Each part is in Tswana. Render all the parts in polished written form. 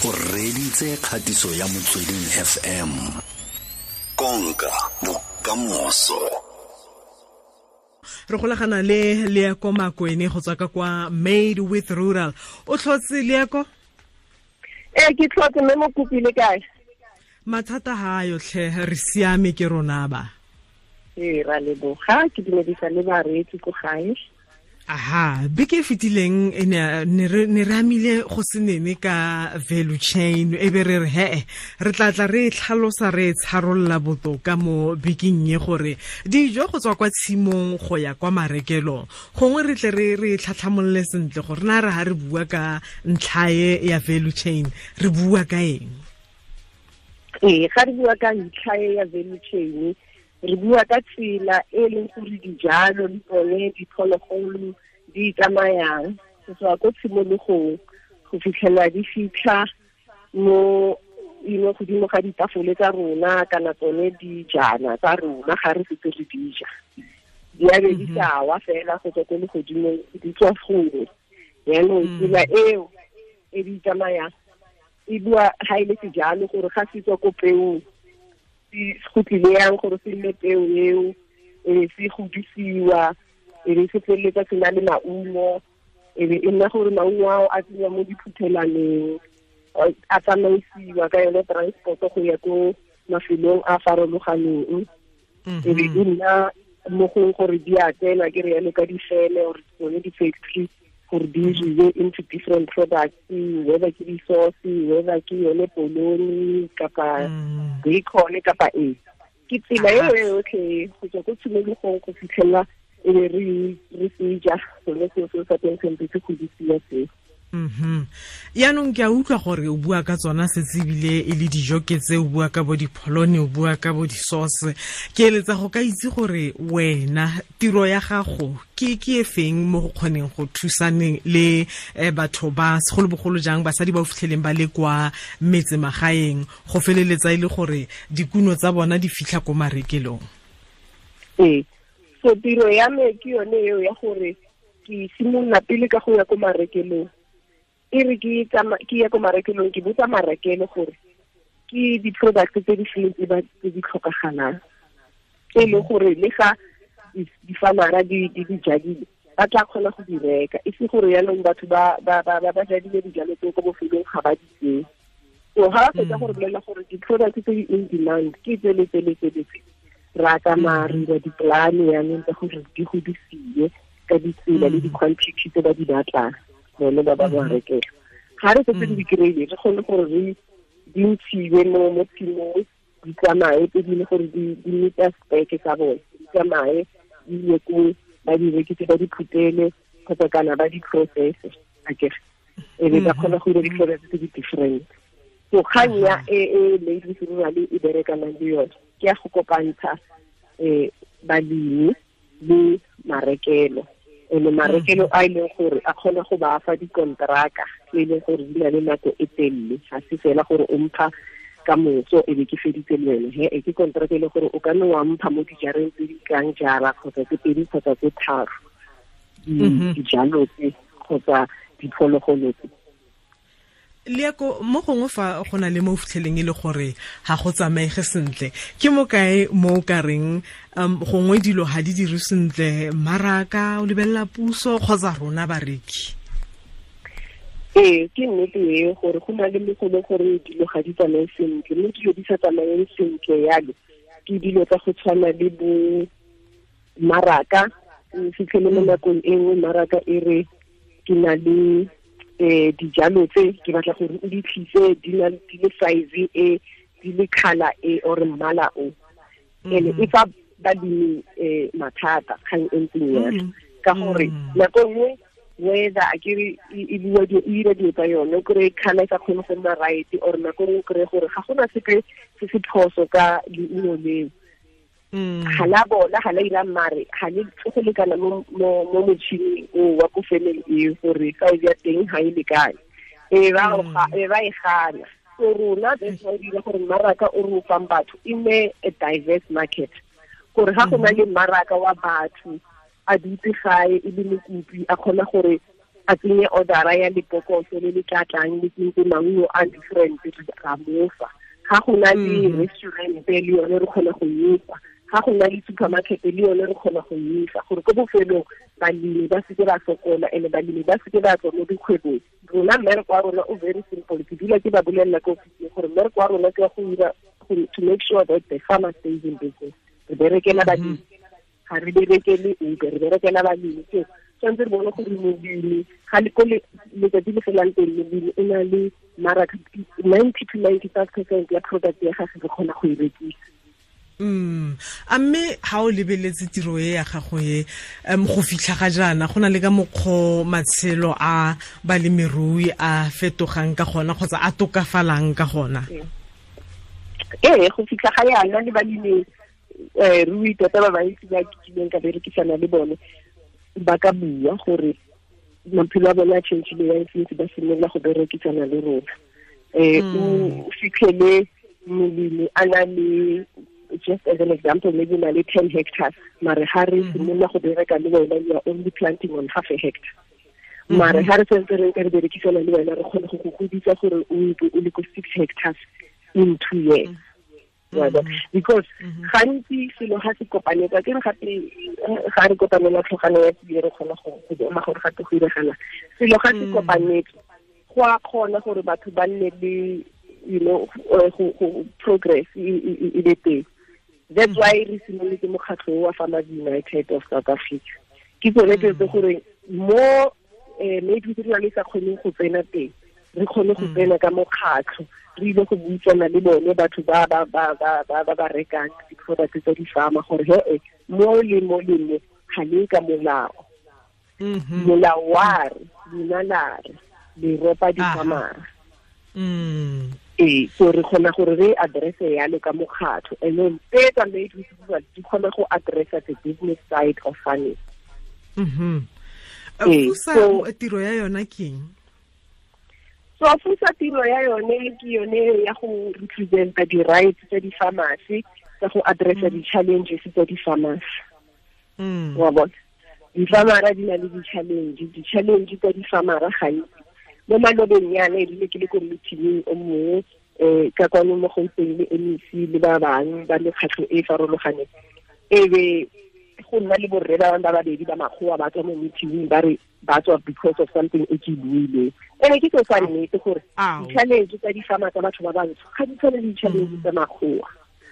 O reditse kgatiso ya Motsweding FM. Konka bokamoso. Re golagana le Leako Makwene go tswa ka kwa Made with Rural. O tlhotse, Leako? Ee, ke tlhotse, mme mo kopile kae? Mathata ha yotlhe, re siame ke rona ba. Ee, ra leboga, ke dumedisa le bareetsi ko gae. Aha, beke e fetileng e ne re amile go se nene ka value chain, e be re re he re tla tla re tlhalosa, re tsharolola botoka mo bekeng e, gore dijo go tswa kwa tshimong go ya kwa marekelong, gongwe re tle re tlhatlhamolole sentle gore na re ha re bua ka ntlha e ya value chain re bua ka eng. Ee, ga re bua ka ntlha e ya value chain, re bua ka tsela e leng gore dijalo le tsone diphologolo di tsamayang go tswa ko tshimologong go fitlhela di fitlha mo ino godimo ga ditafole tsa rona kana tsone dijana tsa rona. Ga re setse re dija, di a be di sa wa fela go tswa ko legodimong, di tswa gongwe. Yaanong tsela eo e di tsamayang e bua ga e le sejalo gore ga se tswa ko peong, go tlile yang gore se nne peo eo, e be se godisiwa, e be se feleletsa se na le maungo, e be e nna gore maungo ao a tsenya mo diphuthelaneng, a tsamaisiwa ka yone transport go ya ko mafelong a farologaneng, e be e nna mo gong gore di a tsena ke re yalo ka difele or tsone di-factory gore di diriwe into different products, whether ke di-sauce, whether ke yone polony kapa bacon kapa eng. Ke tsela eo e yotlhe go tswa ko tshimologong go fitlhela e be re seja sone seo seo sa teng sentse se godisiwa seo. Yaanong ke a utlwa gore o bua ka tsona setse ebile e le dijo ke tse, o bua ka bo dipholone, o bua ka bo di-sauce. Ke eletsa go ka itse gore wena tiro ya gago ke e feng mo go kgoneng go thusaneng le batho ba segolobogolo jang basadi ba o fitlheleng ba le kwa metsemagaeng go feleletsa e le gore dikuno tsa bona di fitlha ko marekelong. Ee, so tiro ya me ke yone eo ya gore ke simolola pele ka go ya ko marekelong. E re ke ya ko marekelong, ke botsa marekelo gore ke di-product tse di feng tse di tlhokagalang, tse e leng gore le ga di-farmera di di jadile ba tla kgona go di reka, e se gore yaanong batho ba jadile dijalo tseo ko bofelong ga ba di tseye. So ga ba fetsa gore bolela gore di-product tse di in demand ke tse le tse le tse le tse, ra tsamaya re dira di-plan yaanong tsa gore di godisiwe ka ditsela le di-quantity tse ba di batlang bone ba ba rekela. Ga re setse di kry-ile, re kgone gore re di ntshiwe mo tshimong, di tsamaye tse dingwe gore di meeta speke tsa bone, di tsamaye di ye ko ba di rekise, ba di phutele kgotsa kana ba di processe akere, e be ba kgona go dira di-products tse di different. So kgang ya e Made with Rural e berekanang le yone ke ya go kopantsha balemi le marekelo, ene marekelo a e leng gore a kgona go ba fa dikonteraka tse e leng gore di na le nako e telele, ga se fela gore o mpha ka moso e be ke feditse le wena. He, e ke konteraka e leng gore o ka nne wa mpha mo dijareng tse di tlang jara kgotsa tse pedi kgotsa tse tharo dijalo tse kgotsa diphologolo tse. Leako, mo gongwe fa go na le mo fitlheleng e le gore ga go tsamaege sentle, ke mo kae mo o ka reng gongwe dilo ga di dire sentle, mmaraka o lebelela puso kgotsa rona bareki? Ee, ke nnete e gore go na le mo go leng gore dilo ga di tsamaye sentle, mme dilo di sa tsamayeng sentle yalo ke dilo tsa go tshwana le bo mmaraka. O fitlhele mo nakong e nngwe mmaraka e re ke na le dijalo tse ke batla gore o di tlise di na di le size e, di le colour e or mmala o, ene e fa balemi mathata kgang e ntseng yalo, ka gore nako nngwe weather a kere e bua e dira dilo tsa yone, o kry-e colour e sa kgone go nna right, or nako nngwe o kry-e gore ga gona sepe se se phoso ka leungo leo, ga la bola, ga la ira mare, ga le go lekana mo motšhining o wa ko femeng eo gore size ya teng ga e lekane, e ba e gana. So rona that's why dira gore mmaraka o re o fang batho e nne a diverse market, gore ga go na le mmaraka wa batho a dutse gae e le mokopi a kgona gore a tsenye order ya lebokoso le le tla tlang le tsentse maungo a different, ra mofa. Ga go na le restaurant le yone re kgona go efa, ga go na le supermarket le yone re kgona go efa, gore ko bofelong balemi ba seke ba sokola, ene balemi ba seke ba tswa mo dikgwebong. Rona mmereko wa rona o very simple, ke dula ke ba bolelela ko ofising gore mmereko wa rona ke wa go dira to make sure that the farmer stays in business. Re berekela balemi, ga re berekele ope, re berekela balemi. So tshwanetse re bone gore molemi ga le ko letsatsi le felang teng, molemi o na le mmaraka 90 to 95% ya product ya gagwe re kgona go e rekisa. A mme ha o lebeletse tiro e ya gago e, go fitlha ga jaana go na le ka mokgwa matshelo a balemirui a fetogang ka gona kgotsa a tokafalang ka gona? Ee, go fitlha ga yana le balemi rui tota ba bantsi ba kileng ka berekisana le bone ba ka bua gore maphelo a bone a changile yang since ba simolola go berekisana le rona. O fitlhele molemi a na le, just as an example, maybe na le 10 hectares, mare ha re simolola go bereka le wena, you are only planting on half a hectare. Mare ha re sentse re ka re berekisana le wena, re kgone go go godisa gore o le ko 6 hectares in 2 years. Because gantsi selo ga se kopanetsa, ke re gape ga re kopanela tlhogano ya tsie re kgona go bona gore gape go iregala. Selo ga se kopanetse, go a kgona gore batho ba nne le, you know, go progress e be teng. That's why re simolotse mokgatlho wa Farmers United of South Africa. Ke tsone tse tse gore mo maybe re le sa kgoneng go tsena teng, re kgone go tsena ka mokgatlho, re ile go buisana le bone batho ba ba ba ba ba ba ba rekang di-product tsa di-farmer gore he mo le mo le mo ga le ka molao. Molao wa re, lona la re, le ropa di-farmer. Ee, so re kgona gore re address-e yalo ka mokgatlho, and then tse tsa Made with Rural di kgona go address-a the business side of farming. FUSA tiro ya yona ke eng? So FUSA tiro ya yone ke yone ya go represent-a di-rights tsa di-farmers, tsa go address-a di-challenges tsa di-farmers. Wa bona, di-farmera di na le di-challenge, di-challenge tsa di-farmera gantsi. Mo malobeng yana e rile ke le ko meeting o mongwe ka kwano mo Gauteng le MEC le ba bangwe ba mekgatlho e farologaneng, e be go nna le borre ba bangwe ba babedi ba makgowa ba tswa mo meeting ba re ba tswa because of something e ke buileng. Ene ke seo sa nnete gore di-challenge tsa di-farmer tsa batho ba bantsho ga di tshwane le di-challenge tsa makgowa.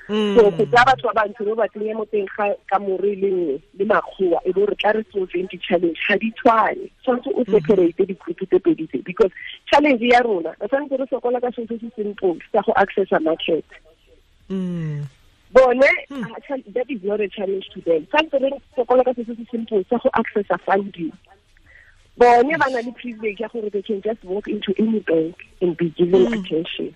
So go tsaya batho ba bantsho ba ba tsenye mo teng ga kamore le nngwe le makgowa e bo re tla re solveng di-challenge ga di tshwane. Tshwanetse o separate di-group tse pedi tse, because challenge ya rona re tshwanetse re sokola ka selo se se simple sa go accessa market. Bone that is not a challenge to them. Tshwanetse re sokola ka selo se se simple sa go accessa funding. Bone ba na le privilege ya gore they can just walk into any bank and be given attention.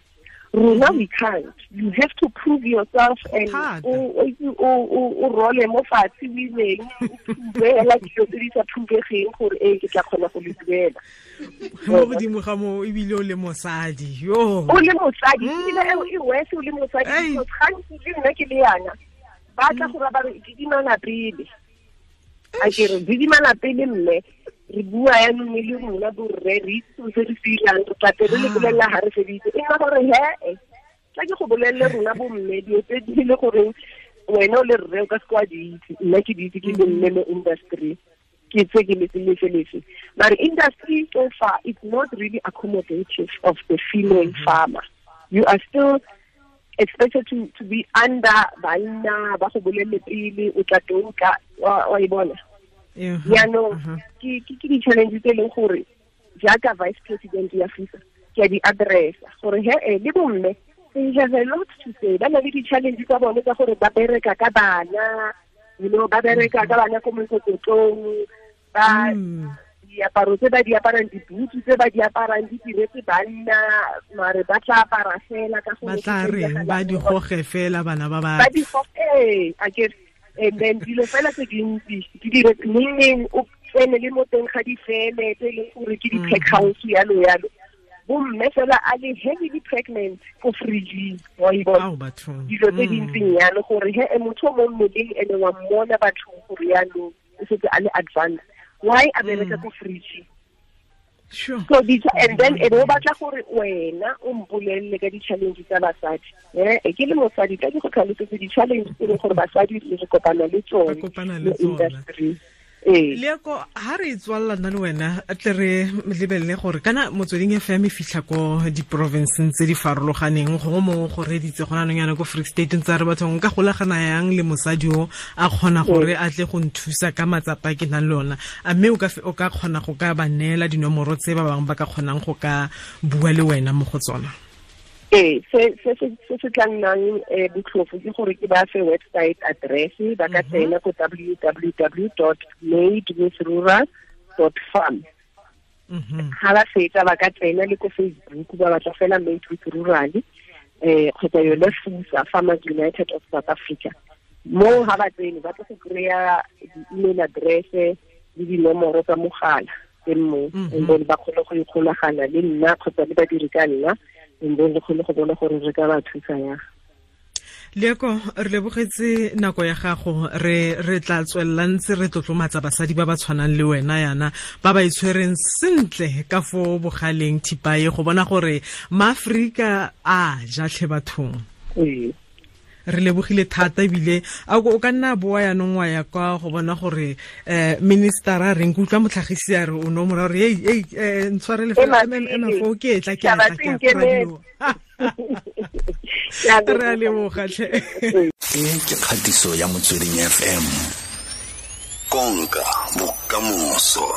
Rona we can't. You have to prove yourself and o role mo fatshe o ileng o prove hela dilo tse di sa provegeng gore ee ke tla kgona go le duela. Mo godimo ga moo ebile o le mosadi. Yo. O le mosadi, ebile e worse o le mosadi, because gantsi le nna ke le yana ba tla go ba re didimana pele. A ke re didimana pele mme re bua yanong le rona borre re itse se re se irang, re tla re le bolelela ha re feditse. E nna gore he tla ke go bolelele rona bomme dilo tse di le gore wena o le rre o ka se kwa di itse, nna ke di itse ke le mme mo industry, ke tse ke letse lefe lefe. Mare industry so far is not really accommodative of the female farmer. You are still expected to be under banna ba go bolelele pele o tla tlo wa e bona. Jaanong ke di-challenge tse e leng gore jaaka vice president ya FUSA ke a di addressa gore he le bomme they have a lot to say. Ba na le di-challenge tsa bone tsa gore ba bereka ka bana, you know, ba bereka ka bana ko mokokotlong, ba diaparo tse ba di aparang, dibutu tse ba di aparang di diretse banna, mare ba tla apara fela ka gore ba tla reng ba di goge fela bana ba ba di goge, a ke. And then dilo fela tse dintsi di dire neng o tsene le mo teng ga difeme tse e leng gore ke di-pack house yalo yalo, bomme fela a le heavily pregnant ko fridging, wa e bona dilo tse dintseng yalo gore he motho o mo mmeleng ene wa mmona bathong gore yalo o setse a le advance, why a bereka ko fridging? Sure. So and then e bo batla gore wena o mpolelle ka di-challenge tsa basadi. Ke le mosadi ka ke go tlhalosetse di-challenge tse leng gore basadi re kopana le tsone mo industry. Leako ha re tswalla nna le wena tle re lebelele gore kana Motsweding FM e fitlha ko di-provinceng tse di farologaneng, gongwe mongwe go reditse gona anong yana ko Free State ntse a re bathong nka golagana yang le mosadi o a kgona gore a tle go nthusa ka matsapa a ke nang le ona, a mme o ka kgona go ka ba neela dinomoro tse ba bangwe ba ka kgonang go ka bua le wena mo go tsona? Ee, se se tla nnang botlhofo ke gore ke ba fe website address, ba ka tsena ko www.madewithrural.farm. Ha ba fetsa ba ka tsena le ko Facebook ba batla fela Made with Rural, kgotsa yone FUSA, Farmers United of South Africa. Mo ha ba tsene ba tla go kry-a di-email address le dinomoro tsa mogala teng mo, and then ba kgone go ikgolagana le nna kgotsa le badiri ka nna, and then re kgone go bona gore re ka ba thusa yang. Leako, re lebogetse nako ya gago, re tla tswelela ntse re tlotlomatsa basadi ba ba tshwanang le wena yana, ba ba itshwereng sentle ka fo bogaleng thipa e, go bona gore maAforika a ja tlhe bathong. Re lebogile thata ebile a o ka nna boa yanong wa ya kwa go bona gore minister a reng, ke utlwa motlhagisi a re o no mora gore ei ntshwarele fela MMFO ke etla ke etla ke radio. Re a leboga tlhe. E ke kgatiso ya Motsweding FM. Konka bokamoso.